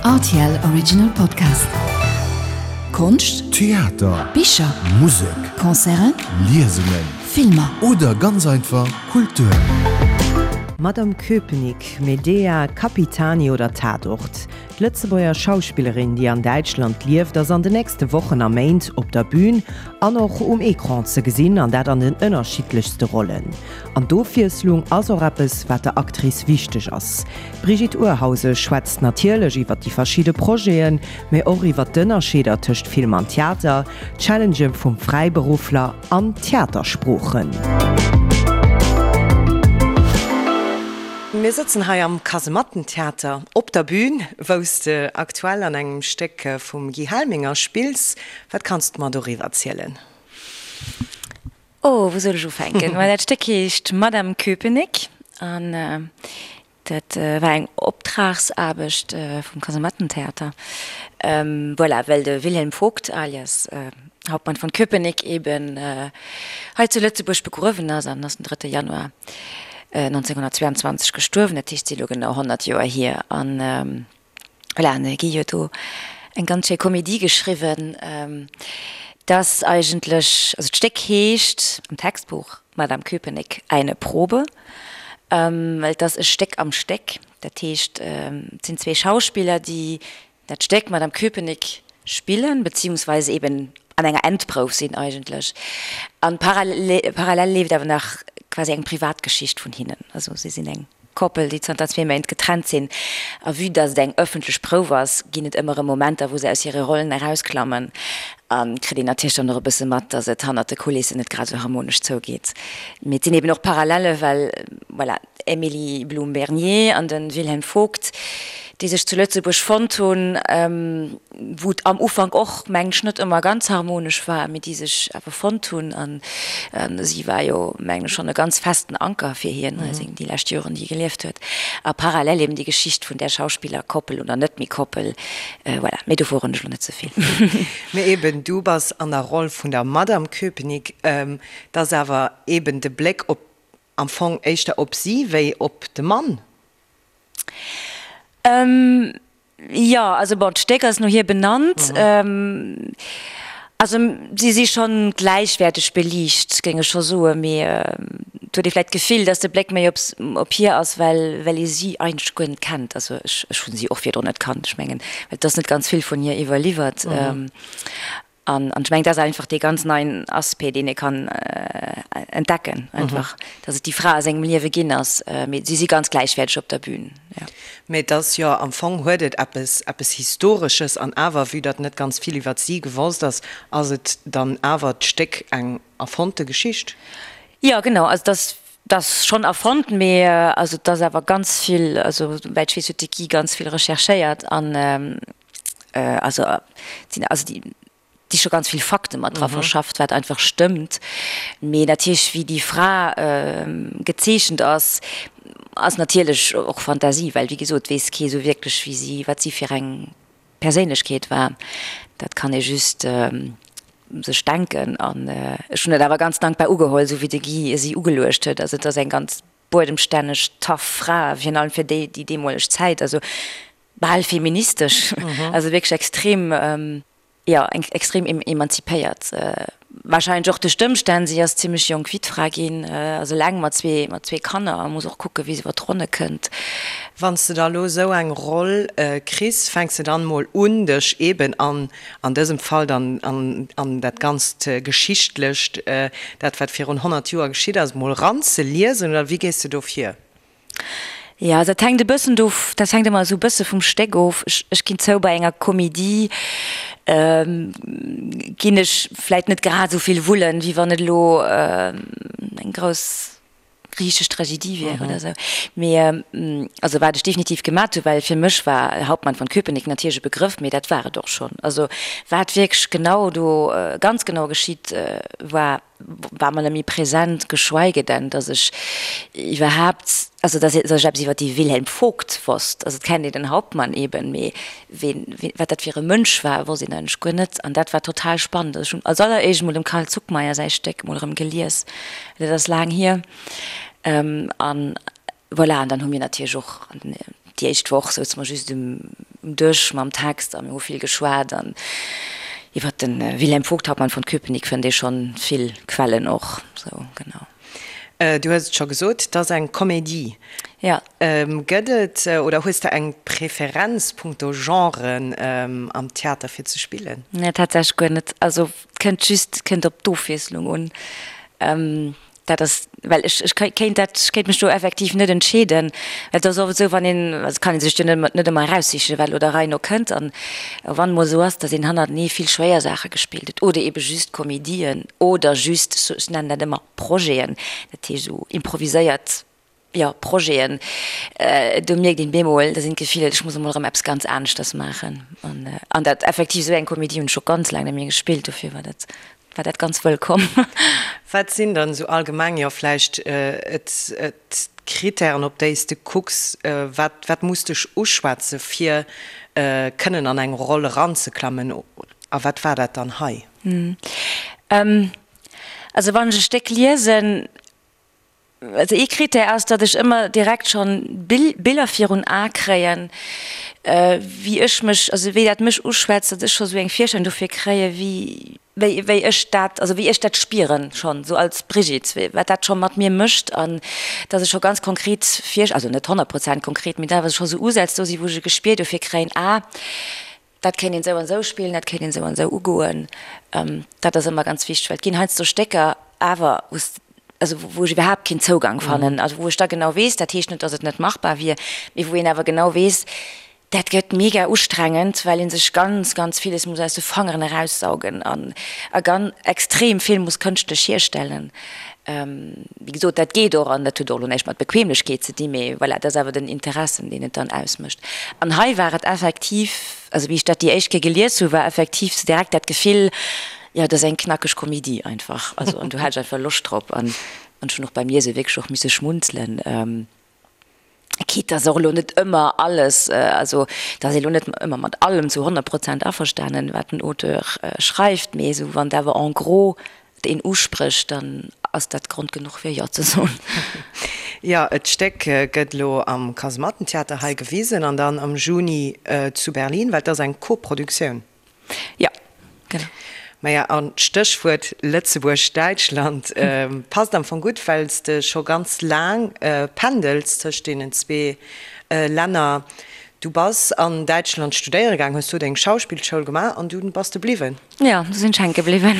Rtl Original Podcast. Konscht, Theater, Bicher, Musek, Concerten, Liesungen Filmer. oder ganz einfach Kultur. Madame Köpenick, Medea, Capitani oder Tatort, D'Lëtzebuerger Schauspillerin, déi an Däitschland lieft, ass an de nächste Wochen a Méint op der Bün an och um Ecran ze gesinn, an dat an den ënnerschiddlechste Rollen. An d'Ofwiesslung ass och eppes, wat der Actrice wichteg ass. D'Brigitte Urhausen schwätzt natierlech iwwer déi verschidde Projeten, mee och iwwer d'Ënnerscheeder tëscht Film an Theater, d'Challengë vum Fräiberuffler an d'Theatersproochen. Mir sëtzen hei am Kasemattentheater op der Bühn, wou s de aktuell an engem Stéck vum Guy Helminger spills. Wat kanns de mer doriwwer zielen? Oh, wou soll ech ufänken? Well dat Stéck heescht Madame Köpenick an dat war eng Optragsaarbecht vum Kasemattentheater. Voilà, well de Wilhelm Vogt alias Hauptmann von Köpenick eben hei zu Lëtzebuerg begruewen ass an ass den drëtte Januar 1922 gestuerwen. Dat heescht, et si elo genau 100 Joer hier. An voilà, an de Guy huet do eng ganz schéi Komedie geschriwwen, dass eigentlech, also d'Stéck heescht am Textbuch Madame Köpenick, eine Probe, well et ass e Stéck am Stéck. Dat heescht, et sinn zwee Schauspiller, déi dat Stéck Madame Köpenick spillen, beziehungsweise eben an enger Endprouf sinn eigentlech. An parallel leeft awer nach quasi eng Privatgeschicht vun hinnen. Also si sinn eng Koppel, déi zanter zwee Méint getrennt sinn. A vue dass et eng ëffentlech Prouf ass, ginn et ëmmer erëm Momenter, wou se aus hire Rollen erausklammen. A kritt een natierlech dann och e bësse mat, dass et hannert de Kulissen net grad esou harmonesch zougeet. Mee et sinn eben och Parallelle, well voilà, Emilie Blum-Bernier an de Wilhelm Vogt, déi sech zu Lëtzebuerg fonnt hunn, wou et am Ufank och, mengen ech, net ëmmer ganz harmonesch war, mee déi sech awer fonnt hunn. A si war jo, mengen ech, schonn e ganz festen Anker fir hien, déi lescht Joren, déi e gelieft huet. A parallel eben déi Geschicht vun där Schauspillerkoppel oder net méi Koppel. Voilà, mee do verroden ech elo net ze vill. Mee eben, du bass an der Roll vun der Madame Köpenick. Et ass awer eben de Bléck op Am Fong éischter op si wéi op de Mann? Jo, also bon, d'Stéck ass no hir benannt. Also si si schonn gläichwäerteg beliicht, géing ech scho soen, mee et huet ee vläicht d'Gefill, datt de Bléck méi op hir ass, well well ee si eigentlech guer net kennt. Also ech ech hu si och virdrun net kannt, ech mengen, well et ass net ganz vill vun hir iwwerliwwert. An ech mengen, dat ass einfach dee ganz neien Aspect, deen ee kann entdecken, einfach, datt et déi Fra a sengem Liewe ginn ass. Mee si si ganz gläichwäerteg op der Bühn, jo. Mee et ass jo, am Fong huet et eppes, eppes Historesches. An awer, vue datt net ganz vill iwwert si gewosst ass, ass et dann awer d'Stéck eng erfonnte Geschicht. Jo, genau. Also et ass, et ass schonn erfonnt, mee also et ass awer ganz vill, also souwäit ech weess, huet de Guy ganz vill recherchéiert an, also sinn also déi déi scho ganz vill Fakte mat dra verschafft, wat einfach stëmmt. Mee natierlech wéi déi Fra gezeechent ass, ass natierlech och Fantasie, well wéi gesot weess kee sou wierklech wéi si, wat si fir eng Perséinlechkeet war. Dat kann ee just sech denken. An ech hunn dat awer ganz dankbar ugeholl, sou wéi de Guy si ugeluecht huet. Also et ass eng ganz buedemstänneg, tough Fra, virun allem fir déi déi deemoleg Zäit. Also bal feministesch, also wierklech extrem, jo, extrem emanzipéiert. Wahrscheinlech och duerch d'Ëmstänn, si ass zimmlech jonk Wittfra ginn, ass eleng mat zwee, mat zwee Kanner a muss och kucke wéi se iwwer d'Ronne kënnt. Wann s de da elo esou eng Roll kriss, fänks de dann emol un dech eben an, an dësem Fall dann an, an dat ganzt Geschichtlecht, dat wat virun 100 Joer geschitt ass, emol eranzeliesen, oder wéi gees de do vir? Jo, dat hänkt e bëssen do, dat hänkt ëmmer esou e bësse vum Stéck of. Ech, ech ginn zou, bei enger Komedie ginn ech vläit net grad esou vill wullen, wéi wann et elo eng grouss griichesch Tragedie wier oder esou. Mee also wat ech definitiv gemat hu, well fir mech war Hauptmann von Köpenick natierlech e Begrëff, mee dat war et och schonn. Also wat wierklech genau do ganz genau geschitt war, war mer net méi present, geschweige denn, dass ech iwwerhaapt, also dass ech eppes iwwer dee Wilhelm Vogt wosst. Also et kennt een den Hauptmann eben, mee ween, wat dat fir e Mënsch war, wosst een eigentlech guer net. An dat war total spannend. Also ech hunn als alleréischt emol dem Carl Zuckmayer säi Stéck emol erëm gelies, dat ass laang hier. An voilà, an dann hu mir natierlech och an den. Déi éischt Woch souze mer just um Dësch mam Text a mir hu vill geschwat an iwwer de Wilhelm Vogt, Hauptmann von Köpenick fënnt ee schonn vill Quellen och. Sou, genau. Du hues et scho gesot, et ass eng Comédie. Jo. Gëtt et oder hues de eng Preferenz punkto Genren am Theater fir ze spillen? Nee, tatsächlech guer net. Also et kënnt just, et kënnt op d'Ofwiesslung un. Dat ass, well ech, ech kéint dat, ech kéint mech do effektiv net entscheeden, well et ass oft esou, wann een, also et kann ee sech jo net, net ëmmer eraussichen, wat elo der Rei no kënnt. An wann emol esou ass, datt een hannertenee vill schwéier Saache gespillt huet oder eebe just Komedien oder just, ech nennen dat ëmmer Projeten, dat heescht esou improviséiert, jo, Projeten, do mierkt een bemol, da sinn d'Gefiller, ech muss emol erëm eppes ganz aneschters maachen. An, an dat effektiv esou eng Komedie hunn ech scho ganz laang net méi gespillt, dofir war dat, war dat ganz wëllkomm. Wat sinn dann esou allgemeng, jo vläicht d'Kritären, op déi s de kucks? Wat, wat muss dech uschwätze fir kënnen an eng Roll eranzeklammen? A wat war dat dann hei? Also wann ech e Stéck liesen, Also ee Critère ass, datt ech ëmmer direkt schonn Biller virun Ae kréien, wéi ech mech, also wéi dat mech uschwätzt, datt ech scho sou eng Virstellung dofir kréie wéi, wéi, wéi ech dat, also wéi ech dat spieren schonn sou als Brigitte, wéi, wat dat scho mat mir mécht an datt ech scho ganz konkret Vir, also net 100 Prozent konkret, mee awer scho sou Usätz do si wou ech e Gespier dofir kréien, ah, Dat kéint een esou an esou spillen, dat kéint een esou an esou ugoen. Dat ass ëmmer ganz wichteg, well et ginn heiansdo Stécker awer, wou s, also wou ech iwwerhaapt keen Zougang fannen, also wou ech da genau weess, dat heescht net, datt et net machbar wier, mee wou een awer genau weess, dat gëtt mega ustrengend, well ee sech ganz, ganz villes muss aus de Fangeren eraussaugen an a ganz extrem vill muss kënschtlech hierstellen. Wéi gesot, dat geet och an dat huet och elo näischt mat Bequemlechkeet ze dinn, mee voilà, dat ass awer den Interessen, deen et dann ausmécht. An hei war et effektiv, also wéi ech dat déi éischt Kéier gelies hu, war effektiv sou direkt dat Gefill, jo, dat ass eng knackeg Komedie einfach, also an do hat ech einfach Loscht drop an ech hunn och beim Liese wierklech och misse schmunzelen. Quitte dass och elo net ëmmer alles, also dass ee elo net ëmmer mat allem zu 100 Prozent averstanen, wat den Auteur schreift, mee esou wann et awer en gros een usprécht, dann ass dat Grond genuch fir Jo ze soen. Jo, et Stéck gëtt elo am Kasemattentheater hei gewisen an dann am Juni zu Berlin, well et ass eng Koproduktioun. Jo, genau. Maja, an d'Stéchwuert Lëtzebuerg-Däitschland passt am Fong gutt, well s de scho ganz laang pendels tëscht deenen zwee Länner. Du bass an Däitschland studéiere gaang, hues do deng Schauspillschoul gemaach an dunn bass de bliwwen. Jo, du sinn ech hänke bliwwen.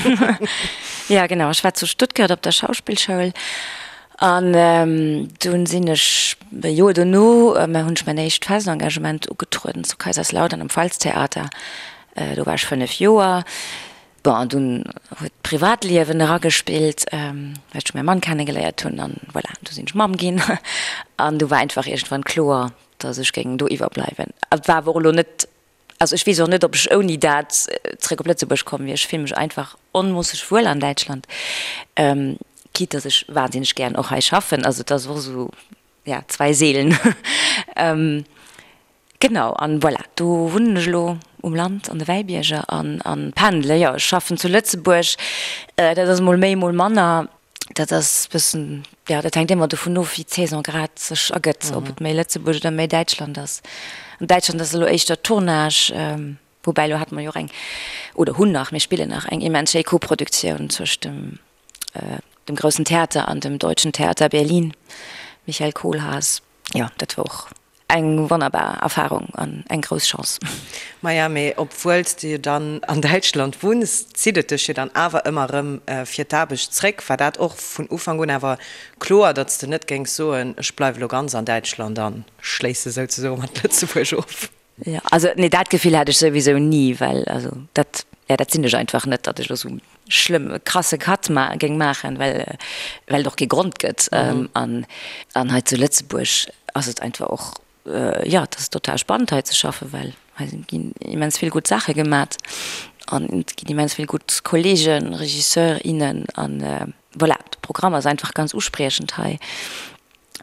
Jo, genau, ech war zu Stuttgart op der Schauspillschoul an dunn sinn ech e Joer dono, hunn ech mäin éischt fest Engagement ugetrueden zu Kaiserslautern am Pfalztheater. Do war ech 5 Joer. Bon, an dunn huet d'Privatliewen eragespillt, well ech mäi Mann kennegeléiert hunn an voilà, du sinn ech Mamm ginn an du war einfach iergendwann kloer, datt ech géing do iwwerbleiwen. Et war awer och elo net, also ech weess och net, ob ech ouni dat zréck op Lëtzebuerg komm wier. Ech fille mech einfach onmoosseg wuel an Däitschland, quitte datt ech wahnsinneg gären och hei schaffen. Also et ass och esou, ja, zwei Seelen. Genau, an voilà, do wunnen ech elo um Land an de Wäibierger an an pendele. Jo, ech schaffen zu Lëtzebuerg, dat ass mol méi, mol manner. Dat ass bëssen, jo, dat hänkt ëmmer dovun of, wéi d'Saison grad sech ergëtt, ob et méi Lëtzebuerg oder méi Däitschland ass. An Däitschland ass elo éischter Tournage, woubäi elo hate mer jo och eng, oder hunn nach, mir spillen nach eng immens schéi Koproduktioun zwëscht dem dem Groussen Theater an dem Deutschen Theater Berlin, Michael Kohlhaas. Jo, dat war och Eng wonnerbar Erfahrung an eng grouss Chance. Maja, mee obwuel s de jo dann an Däitschland wunns, zitt et dech jo dann awer ëmmer erëm fir d'Aarbecht zréck. War dat och vun Ufank un awer kloer, datt s de net géings soen, ech bleiwe lo ganz an Däitschland an schléisse souzesoe mat Lëtzebuerg of? Jo, also nee, dat Gefill hat ech souwisou ni, well also dat, ja, dat sinn ech einfach net, datt ech elo esou schlëmm e krasse Cut ma géing maachen, well well et och kee Grond gëtt. An an hei zu Lëtzebuerg ass et einfach och, jo, et ass total spannend hei ze schaffen, well hei ginn immens vill gutt Saache gemat an et ginn immens vill gutt Kollegen, Regisseur, innen an voilà, de Programm ass einfach ganz uspriechend hei.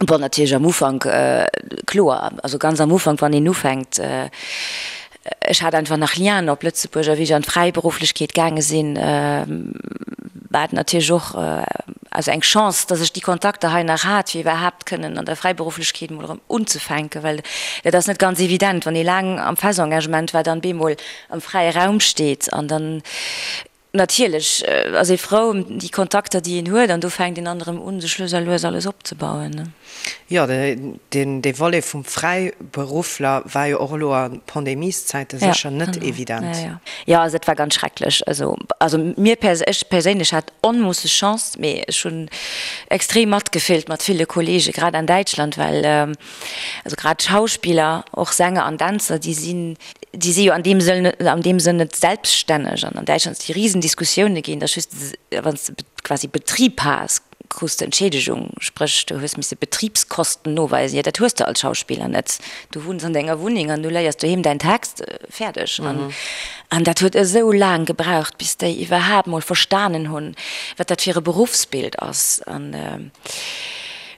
Bon, natierlech am Ufank, kloer, also ganz am Ufank, wann een ufänkt, ech hat einfach nach Lienen op Lëtzebuerg a wéi ech an d'Fräiberufflechkeet gaange sinn. War et natierlech och also eng Chance, dass ech déi Kontakter hei nach hat, fir iwwerhaapt kënnen an der Fräiberufflechkeet emol erëm unzefänken, well dat ass net ganz evident, wann ee laang am Festengagement war, dann bemol am fräie Raum steet an dann natierlech ass ee frou ëm déi Kontakter, déi een huet an do fänkt een dann erëm un, sech lues a lues alles opzebauen. Jo, dee Volet vum Fräiberuffler war jo och elo a Pandemieszäite sécher net evident. Jo, also dat war ganz schrecklech. Also, also mir pers-, ech perséinlech hat onmoosseg Chance, mee ech hunn extrem matgefillt mat ville Kollege grad an Däitschland, well also grad Schauspiller, och Sänger an Dänzer, déi sinn, déi si jo an deem Sënn, an deem Sënn net selbststänneg. An an Däitschland si Risendiskussioune ginn, datt just wann s de quasi Betrib has, krus de Entschiedegung, spréch du hues misse Betribskosten noweisen, jo dat hues de als Schauspiller net, du wunns an denger Wunneng an du léiers doheem däin Text, fäerdeg. An dat huet esou laang gebraucht, bis déi iwwerhaapt mol verstanen hunn, wat dat fir e Beruffsbild ass. An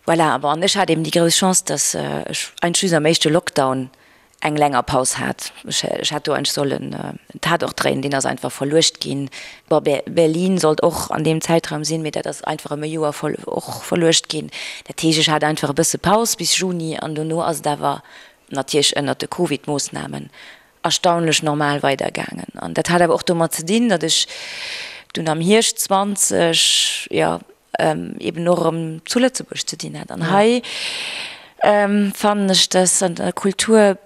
voilà, bon, an ech hat eben déi grouss Chance, datt ech eigentlech just am éischte Lockdown eng länger Paus hat. Ech hätt do eigentlech sollen en Tatort dréinen, deen ass einfach verluecht ginn. Bon, Berlin sollt och an deem Zäitraum sinn, mee dat ass einfach ëm e Joer och verluecht ginn. Dat heescht, ech hat einfach e bësse Paus bis Juni an dono ass et awer natierlech ënnert de Covid-Moossnamen erstaunlech normal weidergaangen. An dat hat awer och domat ze dinn, datt ech dunn am Hierscht 20, jo, eben och erëm zu Lëtzebuerg ze dinn hat. An hei fannen ech, dass an der Kultur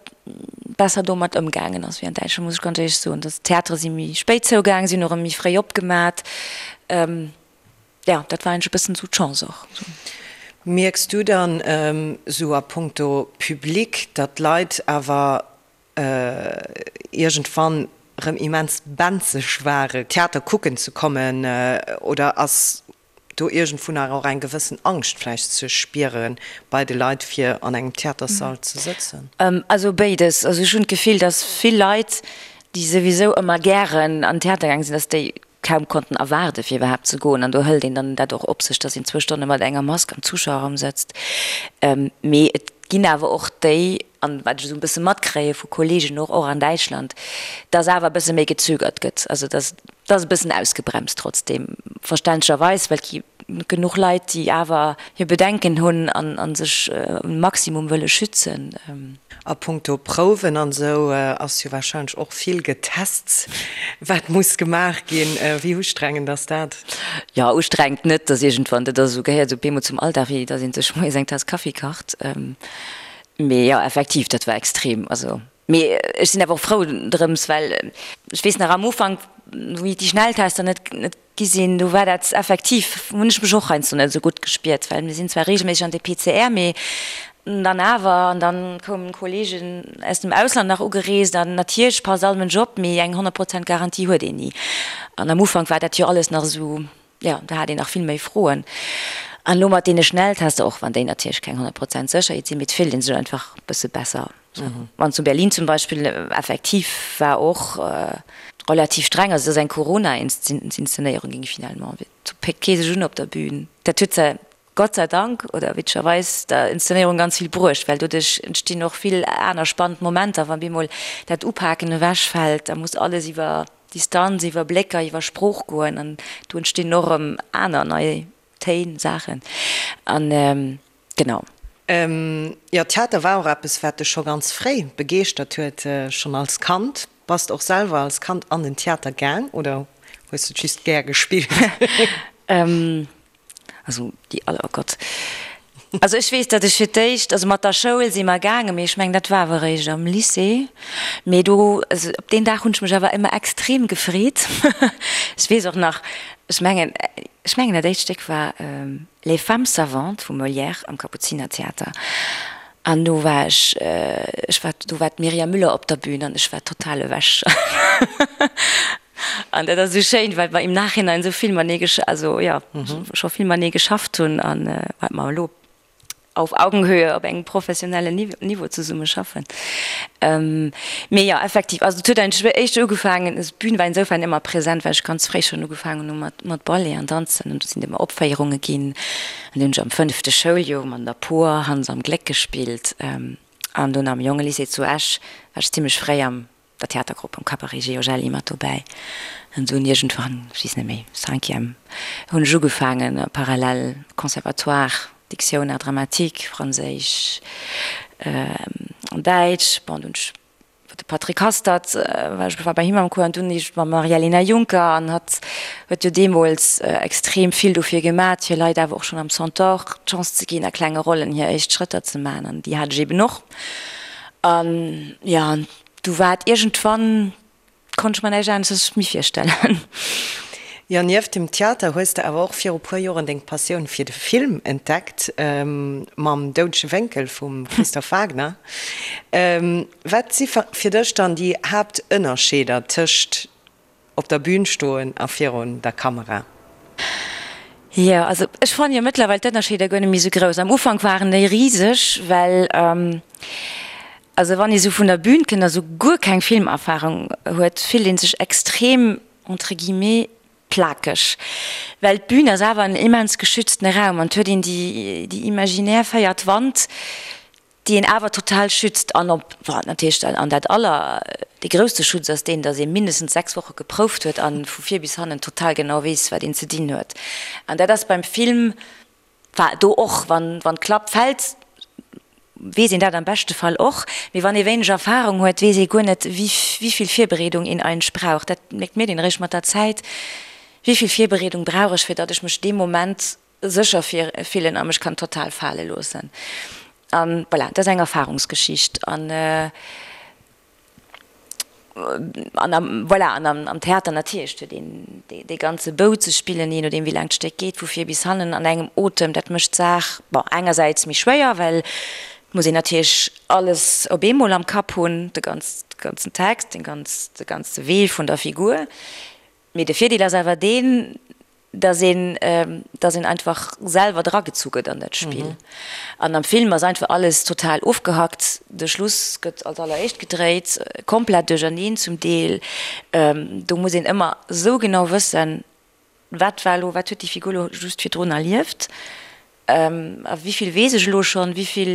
besser domat ëmgaangen ass wéi an Däitschland, muss ech ganz éierlech soen. Dass d'Theatere si méi spéit zougaang, si hunn och erëm méi fréi opgemat. Jo, dat war eigentlech e bëssen esou d'Chance och. Mierks du dann esou a punkto Public, datt d'Leit awer iergendwann rëm immens benzeg ware Theater kucken ze kommen oder ass do iergendwou nach och eng gewëssen Angscht vläicht ze spiere bei de Leit fir an engem Theaterssall ze sëtzen? Also béides. Also ech hunn d'Gefill, datt vill Leit, déi souwisou ëmmer gären an den Theater gaange sinn, datt déi kaum konnten erwaarde fir iwwerhaapt ze goen an do hëlt een dann dat och op sech, datt een zwou Stonne mat enger Mask am Zuschauerraum sëtzt. Mee et ginn awer och déi, an wat ech esou e bësse matkréie vu Kollegen och, och an Däitschland, datt awer e bësse méi gezögert gëtt, also datt et ass e bëssen ausgebremst trotzdeem, verständlecherweis, well et gi genuch Leit, déi awer hir Bedenken hunn a sech um Maximum wëlle schützen. A punkto Prouwen an esou ass jo warscheinlech och vill getest, wat muss gemaach ginn. Wéi ustrengend ass dat? Jo, ustrengend net, dass iergendwann, dat ass esou, gehéiert esou bemol zum Alldag, wéi dass ee sech moies eng Taass Kaffi kacht. Mee jo, effektiv, dat war extrem. Also, mee ech sinn awer och frou drëms, well ech weess nach am Ufank, wéi déi Schnelltester net gi sinn, do war dat effektiv, hunn ech mech och heiansdo net esou gutt gespiert, well mir sinn zwar reegelméisseg an de PCR, mee dann awer, an dann koumen Kollegen aus dem Ausland nach ugereest an natierlech passt all Mënsch op, mee eng 100 Prozent Garantie huet een ni. An am Ufank war dat jo alles nach esou, jo, do hat een nach vill méi Froen. An elo mat deene Schnelltester, och wann déi natierlech keng 100 Prozent Sécherheet sinn, mee et fillt ee sech einfach e bësse besser. An zu Berlin zum Beispill effektiv war och relativ streng, also et ass eng Corona-Inszenéierung ginn finalement, do péckt kee sech un op der Bühn. Dat huet zwar Gott sei Dank oder witzegerweis der Inszenéierung ganz vill bruecht, well doduerch entstinn och vill aner spannend Momenter, wann bemol dat Upaken ewechfält, da muss alles iwwer Distanz, iwwer Blécker, iwwer Sprooch goen an do entstinn och erëm aner nei Téin, Saachen an genau. Jo, Theater war och eppes, wat dech scho ganz fréi begeeschtert huet, schonn als Kand. Bass de och selwer als Kand an den Theater gaang oder hues de et just gär gespillt? Also déi all, oh Gott. Also ech weess, datt ech fir d'éischt, also mat der Schoul si mer gaangen, mee ech mengen, dat war awer eréischt am Lycée. Mee do, also op deen Dag hunn ech mech awer ëmmer extrem gefreet. Ech weess och nach, ech mengen, ech mengen dat éischt Stéck war Les femmes savantes vum Molière am Kapuzinertheater. An do war ech, ech war, do war d'Myriam Müller op der Bühn an ech war total ewech. An dat ass esou schéin, well mer im Nachhinein esou vill matenee gesch-, also jo, scho vill matenee geschafft hunn an wat mer elo auf Augenhöhe op engem professionellen Niveau zesumme schaffen. Mee jo, effektiv, also et huet eigentlech éischter ugefaangen, also d'Bün war insofern ëmmer present, well ech ganz fréi schonn ugefaangen hu mat mat Ballet an Danzen an do sinn et ëmmer Opféierunge ginn an do hunn ech am fënnefte Schouljoer mat der Por Hans am Gléck gespillt an dunn am Jongelycée zu Esch war ech zimmlech fréi am. der Theatergrupp, am Cabaret Georgelli mat dobäi. An dunn iergendwann, ech weess net méi, Cinquième, hunn ech ugefaangen, parallel Conservatoire, Diktioun, Art dramatique, Franséisch an Däitsch. Bon, dunn hunn ech de Patrick Hastert, war ech war bei him am Cours an dunn eescht mam Maria-Elena Juncker an hatt huet jo deemools extrem vill dofir gemat, fir Leit awer och schonn am Centaure d'Chance ze ginn, a klenge Rollen hir éischt Schrëtter ze man an déi hat ech eben och. An jo, an du war et iergendwann, konnt ech mer näischt aneschters méi virstellen. Jo, nieft dem Theater hues de awer och viru puer Joren deng Passioun fir de Film entdeckt, mam Doudege Wénkel vum Christophe Wagner. Wat si fir dech dann déi Haaptënnerscheeder tëscht op der Bün stoen a virun der Kamera? Jo, also ech fannen jo mëttlerweil d'Ënnerscheeder guer net méi esou grouss. Am Ufank waren déi riseg, well also wann ee sou vun der Bün kënnt a sou guer keng Filmerfarung huet, fillt ee sech extrem entre guillemets plakeg, well d'Bün ass awer en immens geschütztene Raum an et huet een déi déi imaginär véiert Wand, déi een awer total schützt an op, bon, natierlech an dat aller, dee grousste Schutz ass deen, datt ee mindestens 6 Woche geprouft huet an vu vir bis hannen total genau weess, wat een ze dinn huet. An dat ass beim Film War do och, wann d'Klapp fält, weess een dat am beschte Fall och, mee wann ee wéineg Erfahrung huet, weess ee guer net, wéi vill Virbereedung een eigentlech brauch. Dat mierkt mir een eréischt mat der Zäit, wéi vill Virbereedung brauch ech, fir datt ech mech dee Moment sécher fillen a mech kann total fale loossen. An voilà, dat ass eng Erfahrungsgeschicht. An An am, voilà, an am Theater natierlech huet een dee ganze Bou ze spillen, jee nodeem wéi laang d'Stéck geet, vu vir bis hannen an engem Otem. Dat mécht d'Saach, bon, engersäits méi schwéier, well et muss een natierlech alles op eemol am Kapp hunn, de ganzen Text, de ganze Wee vun der Figur. Mee de Virdeel ass awer deen, dass een, dass een einfach selwer dragezu gëtt an dat Spill. An am Film ass einfach alles total ofgehackt, de Schluss gëtt als alleréischt gedréit, komplett duercherneen zum Deel. Do muss een ëmmer esou genau wëssen, wat war elo, wat huet déi Figur elo just virdrun erlieft. A wéi vill weess ech elo schonn, wéi vill,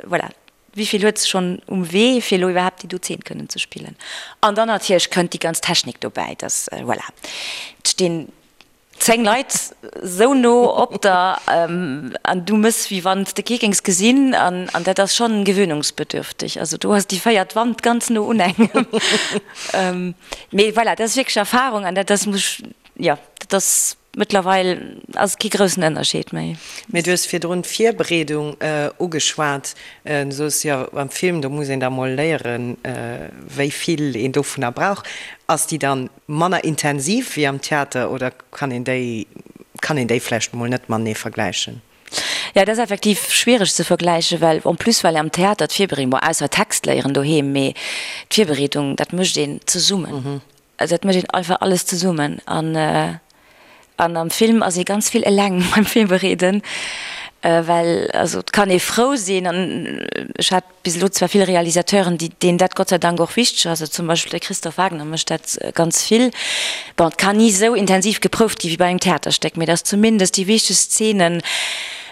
voilà, wéi vill huet se schonn um Wee, fir elo iwwerhaapt déi do Zeen kënnen ze spillen. An dann natierlech kënnt déi ganz Technik dobäi, dass, voilà, et stinn 10 Leit esou no op der an du méchs, wéi wann s de kee géings gesinn. An dat ass schonn gewöhnungsbedürftig. Also do ass déi véiert Wand ganz no un engem. Mee voilà, dat ass wierklech Erfahrung an dat ass, muss ech, jo, dat ass. Mëttlerweil ass et kee groussen Ënnerscheed méi. Mee du hues virdrun d'Virbereedung ugeschwat. Du soos jo, beim Film, do muss een da mol léieren, wéi vill een dovunner brauch. Ass déi dann manner intensiv wéi am Theater oder kann een déi, kann een déi vläicht mol net matenee vergläichen? Jo, dat ass effektiv schwiereg ze vergläichen, well en plus, well am Theater d'Virbereedung, bon, ausser Text léieren doheem, mee d'Virbereedung, dat mécht een zesummen. Also dat mécht een einfach alles zesummen an an am Film ass ee ganz vill eleng beim Virbereeden, well also et kann ee frou sinn an ech hat bis elo zwar vill Realisateuren, déi deenen dat Gott sei Dank och wichteg ass, also zum Beispill de Christophe Wagner mécht dat ganz vill. Bon, et kann ni esou intensiv geprouft gi wéi bei engem Theaterstéck, mee datt zumindest déi wichtegst Zeenen,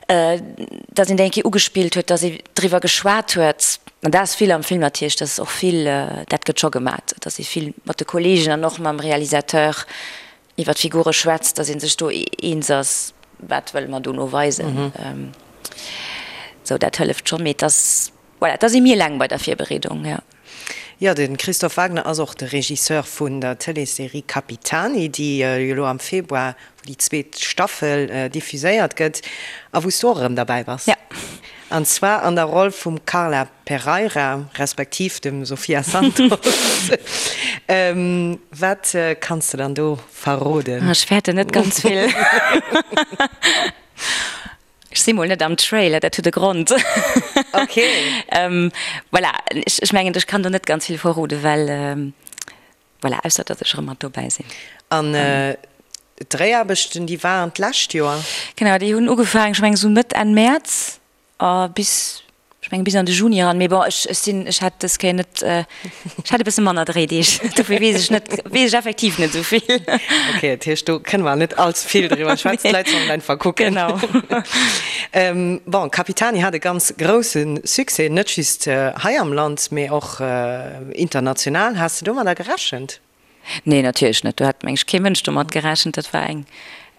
datt een déi eng Kéier ugespillt huet, datt ee driwwer geschwat huet. An dat ass vill am Film natierlech, dat ass och vill, dat gëtt scho gemat, datt ee vill mat de Kolleegen an och mam Realisateur iwwer d'Figure schwätzt, datt ee sech do eens ass, wat wëlle mer dono weisen. Sou, dat hëlleft schonn, mee et ass, voilà, et ass ee méi eleng bei der Virbereedung, jo. Jo, de Christophe Wagner ass och de Regisseur vun der Tëleesserie Capitani, déi jo elo am Februar, wou déi zweet Staffel diffuséiert gëtt a wou s du och erëm derbäi bass. Ja. An zwar an der Roll vum Carla Pereira, respektiv dem Sofia Santos. Wat kanns de dann do verroden? Ech fäerten net ganz vill. Ech si mol net am Trailer, dat huet e Grond. Ok. Voilà, ech mengen, ech kann do net ganz vill verroden, well, voilà, ausser datt ech erëm mat dobäi sinn. An d'Dréiaarbechten, déi waren d'lescht Joer? Genau, déi hunn ugefaangen, ech mengen esou Mëtt, Enn Mäerz a bis. Ech mengen bis an de Juni eran, mee bon, ech, ech sinn, ech hat dës Kéier net, ech hat e bësse manner Dréideeg, dofir weess ech net, weess ech effektiv net esou vill. Ok, dat heescht, do kënne mer net all ze vill driwwer schwätzen, d'Leit sollen einfach kucken. Genau. Bon, Capitani hat e ganz grousse Succès, net just hei am Land, mee och international. Has de domadder gerechent? Nee, natierlech net. Do hat, meng ech, kee Mënsch domat gerechent. Dat war eng,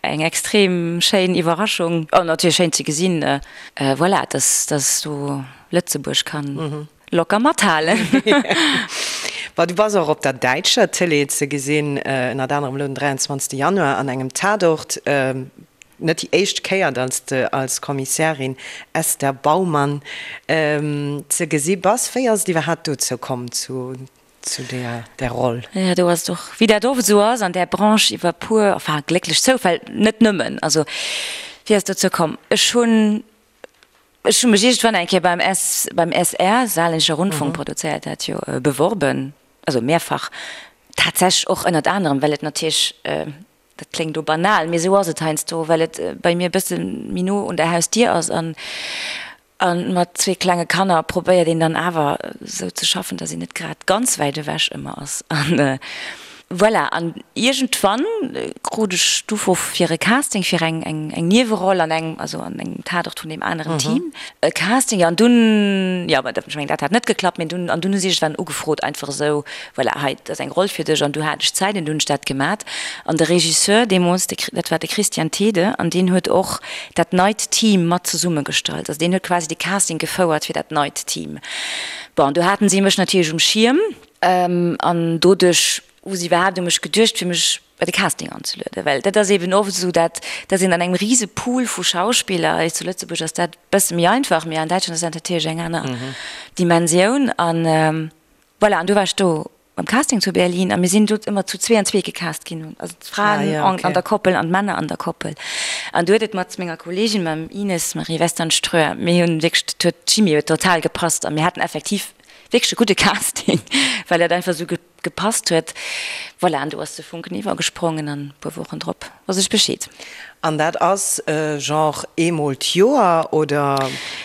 eng extrem schéin Iwwerraschung. An natierlech schéin ze gesinn, voilà, dass, dass do Lëtzebuerg kann locker mathalen. Bon, du bass och op der däitscher Tëlee ze gesinn, ënnert anerem elo den 23 Januar an engem Tatort. Net déi éischt Kéier, dass de als Kommissärin Esther Baumann ze gesi bass. Wéi ass et iwwerhaapt dozou komm, zu zu där där Roll? Jo, do ass et och, wéi dat oft esou ass an där Branche, iwwer puer, enfin glécklech Zoufäll, net nëmmen. Also wéi ass et dozou komm? Ech hunn, ech hu mech iergendwann eng Kéier beim S, beim SR, Saarländischer Rundfunk produzéiert dat jo, beworben, also mehrfach, tatsächlech och ënnert anerem, well et natierlech, dat kléngt elo banal, mee esou ass et heiansdo, well et bei mir e bësse méi no un der Hausdier ass an A mat zwee klenge Kanner probéiert een dann awer esou ze schaffen, dass een net grad ganz wäit ewech ëmmer ass. An voilà, an iergendwann krut ech d'Ufro fir e Casting fir eng eng Nieweroll an engem, also an engem Tatort vun deem aneren Team. E Casting, jo, an dunn, jo, ech mengen dat hat net geklappt, mee dunn, an dunn hu si iergendwann ugefrot einfach esou, voilà, hei, dat ass eng Roll fir dech an du hat ech Zäit an du hunn ech dat gemat. An de Regisseur deemools, de, dat war de Christian Thede an deen huet och dat neit Team mat zesummegestallt. Also deen huet quasi de Casting gefouert fir dat neit Team. Bon, do haten si mech natierlech um Schierm an doduerch hu si iwwerhaapt u mech geduecht, fir mech bei de Casting anzelueden. Well dat ass eeben oft esou, dat dass een an engem rise Pool vu Schauspiller, hei zu Lëtzebuerg ass dat e bësse méi einfach, mee an Däitschland ass dat natierlech eng aner Dimensioun. An Voilà, an du war ech do beim Casting zu Berlin a mir sinn do ëmmer zu zwee an zwee gecast ginn, also d'Fraen ah, ja, okay. an der Koppel an d'Männer an der Koppel. An du huet et mat menger Kollegin, mam Ines Marie Westernströer, mir hunn wierklech, dat huet, d'Chimie huet total gepasst a mir haten effektiv wierklech e gudde Casting, well dat einfach esou gepasst huet. Voilà, an du ass de Funken iwwergesprongen an e puer Wochen drop wosst ech Bescheed. An dat ass genre eemol d'Joer, oder?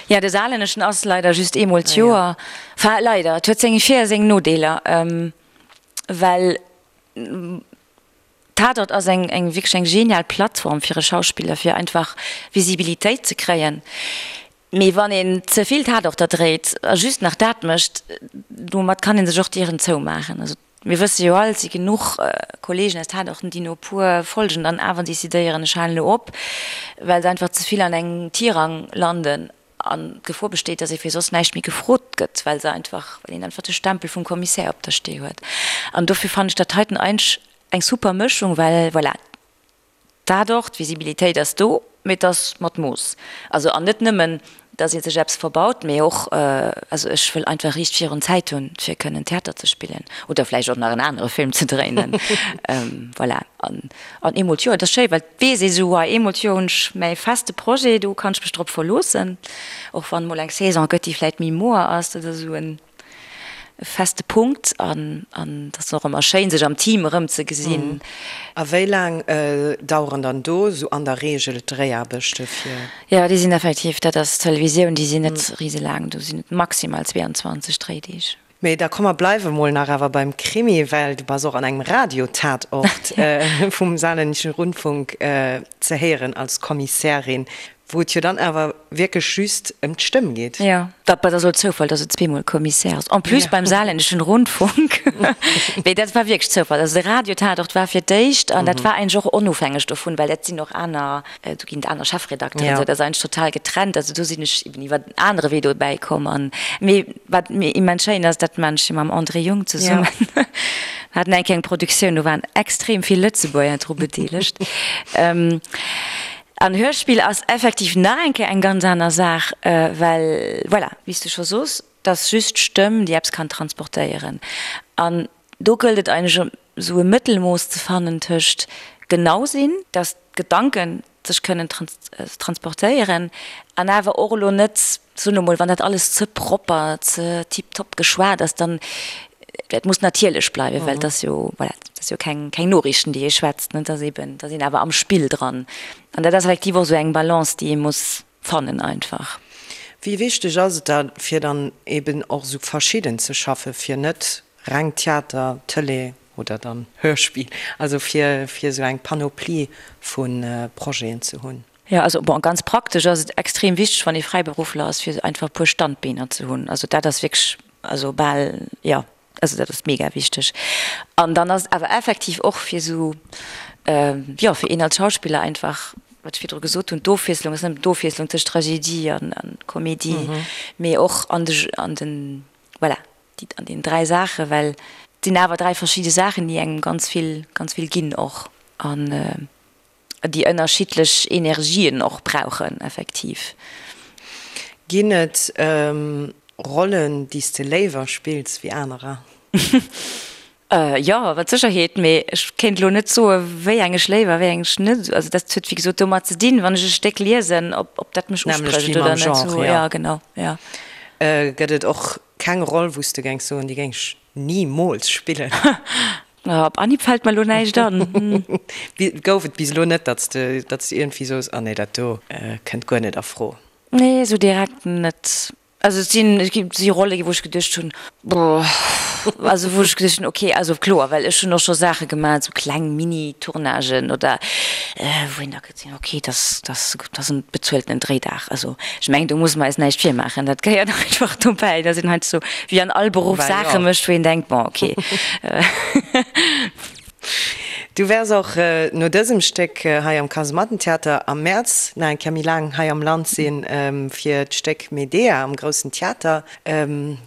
Jo, de Saarlänneschen ass leider just eemol d'Joer. Enfin, leider, et huet seng Vir a seng Nodeeler, well Tatort ass eng eng wierklech eng genial Plattform fir e Schauspiller, fir einfach Visibilitéit ze kréien. Mee wann een ze vill Tatorter dréit a just nach dat mécht, domat kann ee sech och d'Dieren zoumaachen. Also mir wësse jo all, et si genuch Kollegen aus Tatorten, déi no e puer Folgen dann awer decidéieren, ech halen elo op, well se einfach ze vill an engem Tirang landen an d'Gefor besteet, datt ee fir soss näischt méi gefrot gëtt, well se einfach, well een einfach de Stempel vum Kommissär op der Stee huet. An dofir fannen ech dat heiten eigentlech eng super Mëschung, well voilà, Dat och, d'Visibilitéit ass do, mee et ass mat Mooss. Also, an net nëmmen, datt ee sech eppes verbaut, mee och, also ech wëll einfach riicht virun Zäit hunn, fir kënnen Theater ze spillen oder vläicht och nach en anere Film ze dréinen. Voilà. An, an eemol d'Joer, et ass schéi, well et weess ee sou, hei eemol d'Joer hunn ech mäi feste Projet, do kann ech mech drop verloossen, och wann emol eng Saison gëtt, déi vläicht méi moer ass, dat ass esou en. e feste Punkt an an et ass och ëmmer schéin sech am Team erëmzegesinn. A wéi laang daueren dann do esou an der Reegel d'Dréiaarbechte fir? Jo, déi sinn effektiv, dat ass Televisioun, déi sinn net riselaang, do sinn et maximal 22 Dréideeg. Mee da komm mer bleiwe mol nach awer beim Krimi, well du bass och an engem Radio-Tatort vum Saarländischen Rundfunk ze héieren als Kommissärin. Wou et jo dann awer wierklech just ëm d'Stëmm geet. Jo, dat ass elo Zoufall, dass et zweemol Kommissär ass, en plus beim Saarländischen Rundfunk. Mee dat war wierklech Zoufall. Also de Radio-Tatort war fir d'éischt, an dat war eigentlech och onofhängeg dovun, well dat sinn och aner, do ginn et aner Chefredakteuren, esou, dat ass eigentlech total getrennt. Also do sinn ech eben iwwer en anere Wee dobäi komm. An, mee wat mir immens schéin ass, dat maan ech jo mam André Jung zesummen. Mir haten eng kleng Produktioun, do waren extrem vill Lëtzebuerger dru bedeelegt. An Hörspill ass effektiv nach eng Kéier eng ganz aner Saach, well, voilà, wéi s de scho sos, 't ass just d'Stëmm, déi eppes kann transportéieren. An do gëllt et eigentlech, esou e Mëttelmooss ze fannen tëscht genau sinn, dass d'Gedanke sech kënnen transportéieren, an awer och elo net, soen elo mol, wann dat alles ze propper, ze tiptop geschwat ass, dann, et muss natierlech bleiwen, well et ass jo, voilà, et ass jo keng, keng Noriichten, déi ee schwätzt, ne, et ass eben, et ass een awer am Spill dran. An dat ass effektiv och esou eng Balance, déi ee muss fannen einfach. Wéi wichteg ass et da fir dann eben och esou verschidden ze schaffe fir net reng Theater, Tëlee oder dann Hörspill, also fir fir esou eng Panoplie vu Projeten ze hunn? Jo, also bon, ganz praktesch ass et extrem wichteg, wann ee Fräiberuffler ass, fir einfach e puer Standbeener ze hunn. Also dat ass wierklech, also bal, jo, also dat ass mega wichteg. An dann ass et awer effektiv och fir esou, jo, fir een als Schauspiller einfach, wat ech virdru gesot hunn, d'Ofwiesslung ass net nëmmen d'Ofwiesslung tëscht Tragedie an Komedie, mee och an de, an den, voilà, déi, an deenen 3 Saachen, well et sinn awer 3 verschidde Saachen, déi engem ganz vill, ganz vill ginn och. An déi ënnerschiddlech Energien och brauchen, effektiv. Ginn et Rollen, déi s de léiwer spills wéi anerer? Jo, mat Sécherheet, mee ech kéint elo net soe wéi eng ech léiwer, wéi eng ech net. Also dat huet wéi gesot domat ze dinn, wann ech e Stéck liesen, ob ob dat mech Nämlech usprécht wéi oder mam net. Genre, Sou, jo. ja, genau, ja. Gëtt et och keng Roll, wou s de géings soen, déi géing ech nimools spillen? Op Anhieb fällt mer elo näischt an. Gouf et bis elo net, datt s de, datt s de iergendwéi soos, ah nee, dat do kënnt guer net a Fro? Nee, esou direkt net. Also et sinn, et gi si Rolle gi wou ech geduecht hunn, boah, also wou ech geduecht hunn, okay, also kloer, well ech hunn och scho Saache gemaach, esou kleng Mini-Tournagen oder wou een da gesinn huet, okay, dass, dass, dass en bezueltenen Dréidag. Also ech mengen, do musse mer eis näischt virmaachen, dat gehéiert einfach dobäi, dass een heiansdo wéi an all Beruff Saache mécht, wou een denkt, bon, okay. Du wäers och no dësem Stéck hei am Kasemattentheater am Mäerz nach eng Kéier méi laang hei am Land sinn, fir d'Stéck Medea am Groussen Theater.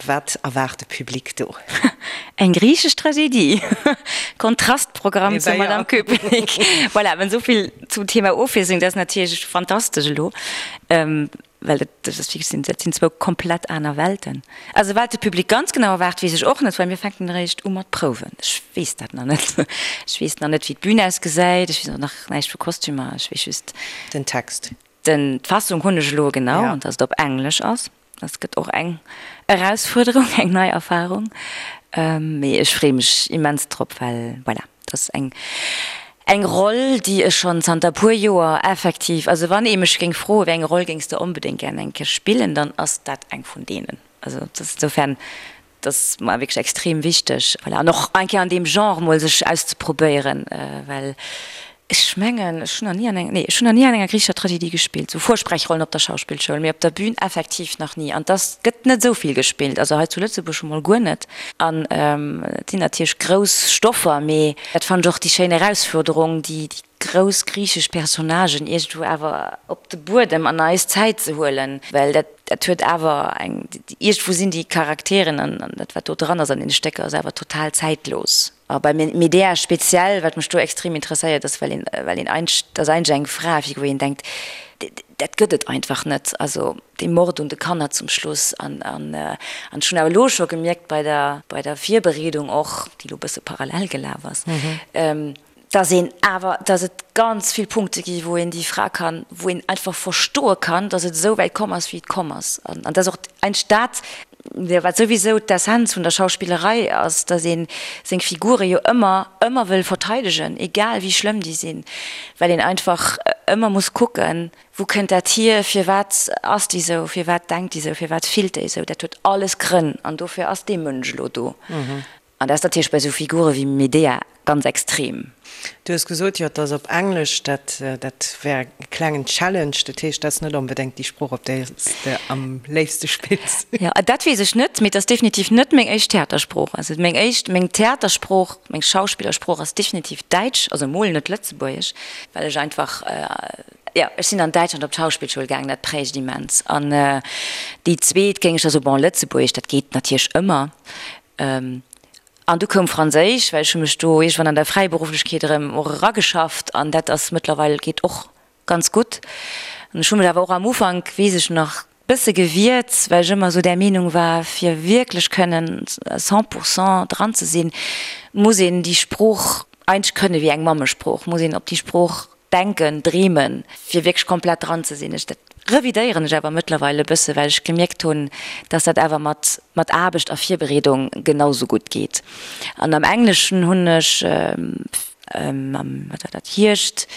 Wat erwaart de Public do? Eng griichesch Tragedie! Kontrastprogramm zur Madame Köpenick. Voilà, mä esou vill zum Thema Ofwiesslung. Dat ass natierlech fantastesch elo, well dat ass wierklech, dat sinn zwou komplett aner Welten. Also wat de Public ganz genau erwaart, weess ech och net, well mir fänken eréischt u mat prouwen. Ech weess dat nach net. Ech weess nach net, wéi d'Bün ausgesäit. Ech weess och nach näischt vu Kostümer. Ech weess just. Den Text. Den, d'Fassung hunn ech elo genau, an dass et op Englesch ass. Dat gëtt och eng Erausfuerderung, eng nei Erfarung. Mee ech freeë mech immens drop, well voilà, dat ass eng, eng Roll, déi ech schonn zanter e puer Joer effektiv, also wann ee mech géing froen, wéi eng Roll géings de onbedéngt gären eng Kéier spillen, dann ass dat eng vun deenen. Also dat ass insofern Dat ass mer wierklech extrem wichteg. Voilà, an och eng Kéier an deem Genre mol sech auszeprobéieren, well ech mengen, ech hunn nach ni an enger, nee, ech hunn nach ni an enger griichescher Tragedie gespillt, sou Vorsprechrollen op der Schauspillschoul, mee op der Bühn effektiv nach ni. An dass gëtt net esou vill gespillt, also hei zu Lëtzebuerg scho mol guer net. An et sinn natierlech grouss Stoffer, mee dat fannen ech och déi schéin Erausfuerderung, déi grouss griichesch Personnagen iergendwou awer op de Buedem an eis Zäit ze huelen, well dat, dat huet awer eng, iergendwou sinn déi Charakteren an dat wat do dran ass an deene Stécker ass awer total zäitlos. A bei Medea speziell, wat mech do extrem interesséiert ass, well een, well een eigentlech, dat ass eigentlech eng Fra, wou een denkt, dat gëtt et einfach net, also dee Mord un de Kanner zum Schluss an, an, an ech hunn awer elo scho gemierkt bei der, bei der Virbereedung och, déi elo e bësse parallel gelaf ass, dass een awer, dass et ganz vill Punkte gi wou een déi Fra kann, wou een einfach verstoe kann, dass et esou wäit komm ass, wéi et komm ass. An dat ass och eigentlech dat, wat souwisou d'Essenz vun der Schauspillerei ass, dass ee seng Figure jo ëmmer, ëmmer wëll verteidegen, egal wéi schlëmm déi sinn, well een einfach ëmmer muss kucken, wou kënnt dat hier, firwat ass déi esou, firwat denkt déi esou, firwat fillt déi esou. Dat huet alles Grënn an dofir ass dee Mënsch elo do. An dat ass natierlech bei esou Figure wéi Medea ganz extrem. Du hues gesot, jo, et ass op Englesch, dat, dat wär e klengen Challenge. Dat heescht, dat ass net onbedéngt déi Sprooch, op där s de am léifste spills. Jo, dat weess ech net, mee et ass definitiv net meng éischt Theatersprooch. Also meng éischt, meng Theatersprooch, meng Schauspillersprooch ass definitiv Däitsch, also emol net Lëtzebuergesch, well ech einfach, jo, ech sinn an Däitschland op d'Schauspillschoul gaangen, dat prägt immens. An déi zweet géing ech da soen, bon, Lëtzebuergesch, dat geet natierlech ëmmer. An du koum Franséisch, well ech hu mech do iergendwann an der Fräiberufflechkeet erëm och erageschafft an dat ass mëttlerweil, geet och ganz gutt. An ech hu mech awer och am Ufank, weess ech nach, bësse gewiert, well ech ëmmer esou där Meenung war, fir wierklech kënnen cent pour cent dran ze sinn, muss een déi Sprooch eigentlech kënne wéi eng Mammesprooch, muss een op déi Sprooch denken, dreemen, fir wierklech komplett dran ze sinn. Ech, dat revidéieren ech awer mëttlerweil e bësse, well ech gemierkt hunn, dass dat awer mat, mat Aarbecht a Virbereedung genau sou gutt geet. An am Engleschen hunn ech am, wat war dat, Hierscht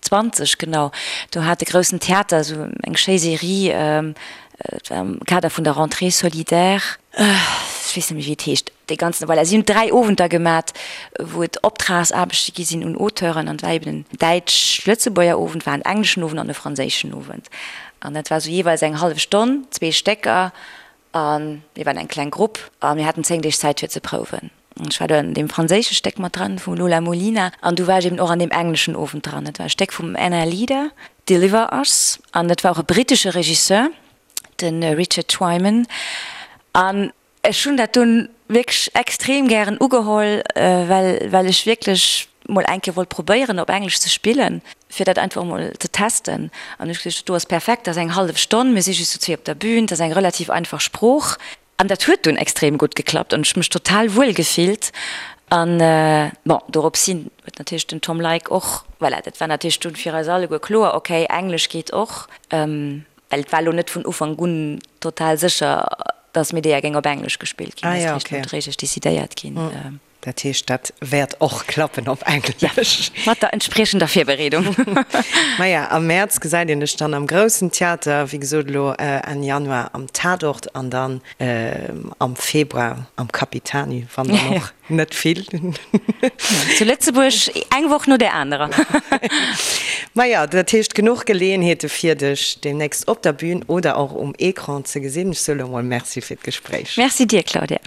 20, genau, do hat de Groussen Theater esou eng schéi Serie. Et war am Kader vun der Rentrée solidaire, ech weess net méi wéi et heescht, dee ganzen, voilà, si hunn 3 Owenter gemat, wou et Optragsaarbechte gi sinn un Auteuren an et war eben en däitsch-lëtzebuerger Owend, war en engleschen Owend an e franséischen Owend. An dat war esou jeeweils eng hallef Stonn, zwee Stécker a mir waren eng kleng Grupp a mir haten 10 Deeg Zäit fir ze prouwen. An ech war do an deem franséische Stéck mat dran vum Lola Molina an du war ech eben och an deem engleschen Owend dran. Dat war e Stéck vum Anna Leader, Deliver Us, an dat war och e brittesche Regisseur, de Richard Twyman. An ech hunn dat dunn wierklech extrem gären ugeholl, well well ech wierklech mol eng Kéier wollt probéieren op Englesch ze spillen, fir dat einfach mol ze testen. An ech geduecht, dat do ass perfekt, dat ass eng hallef Stonn, mir si just zu zwee op der Bühn, dat ass eng relativ einfach Sprooch. An dat huet dunn extrem gutt geklappt an ech hu mech total wuel gefillt. An bon, dorops hin huet natierlech den Tom Leick och, voilà, dat war natierlech dunn fir eis alleguer kloer, okay, Englesch geet och. Well et war elo net vun Ufank un total sécher, datt Medea géing op Englesch gespillt ginn. Dat ass eréischt nodréiglech decidéiert ginn. Dat heescht, dat wäert och klappen op Englesch. Mat der entspriechender Virbereedung. Maja, am Mäerz gesäit een dech dann am Groussen Theater, wéi gesot elo Enn Januar am Tatort an dann am Februar am Capitani, wann dann och net vill. Zu Lëtzebuerg eng Woch no där anerer. Maja, dat heescht genuch Geleeënheete fir dech deemnächst op der Bühn oder och um Ecran ze gesinn. Ech soe lo mol Merci fir d'Gespréich. Merci dir, Claudia.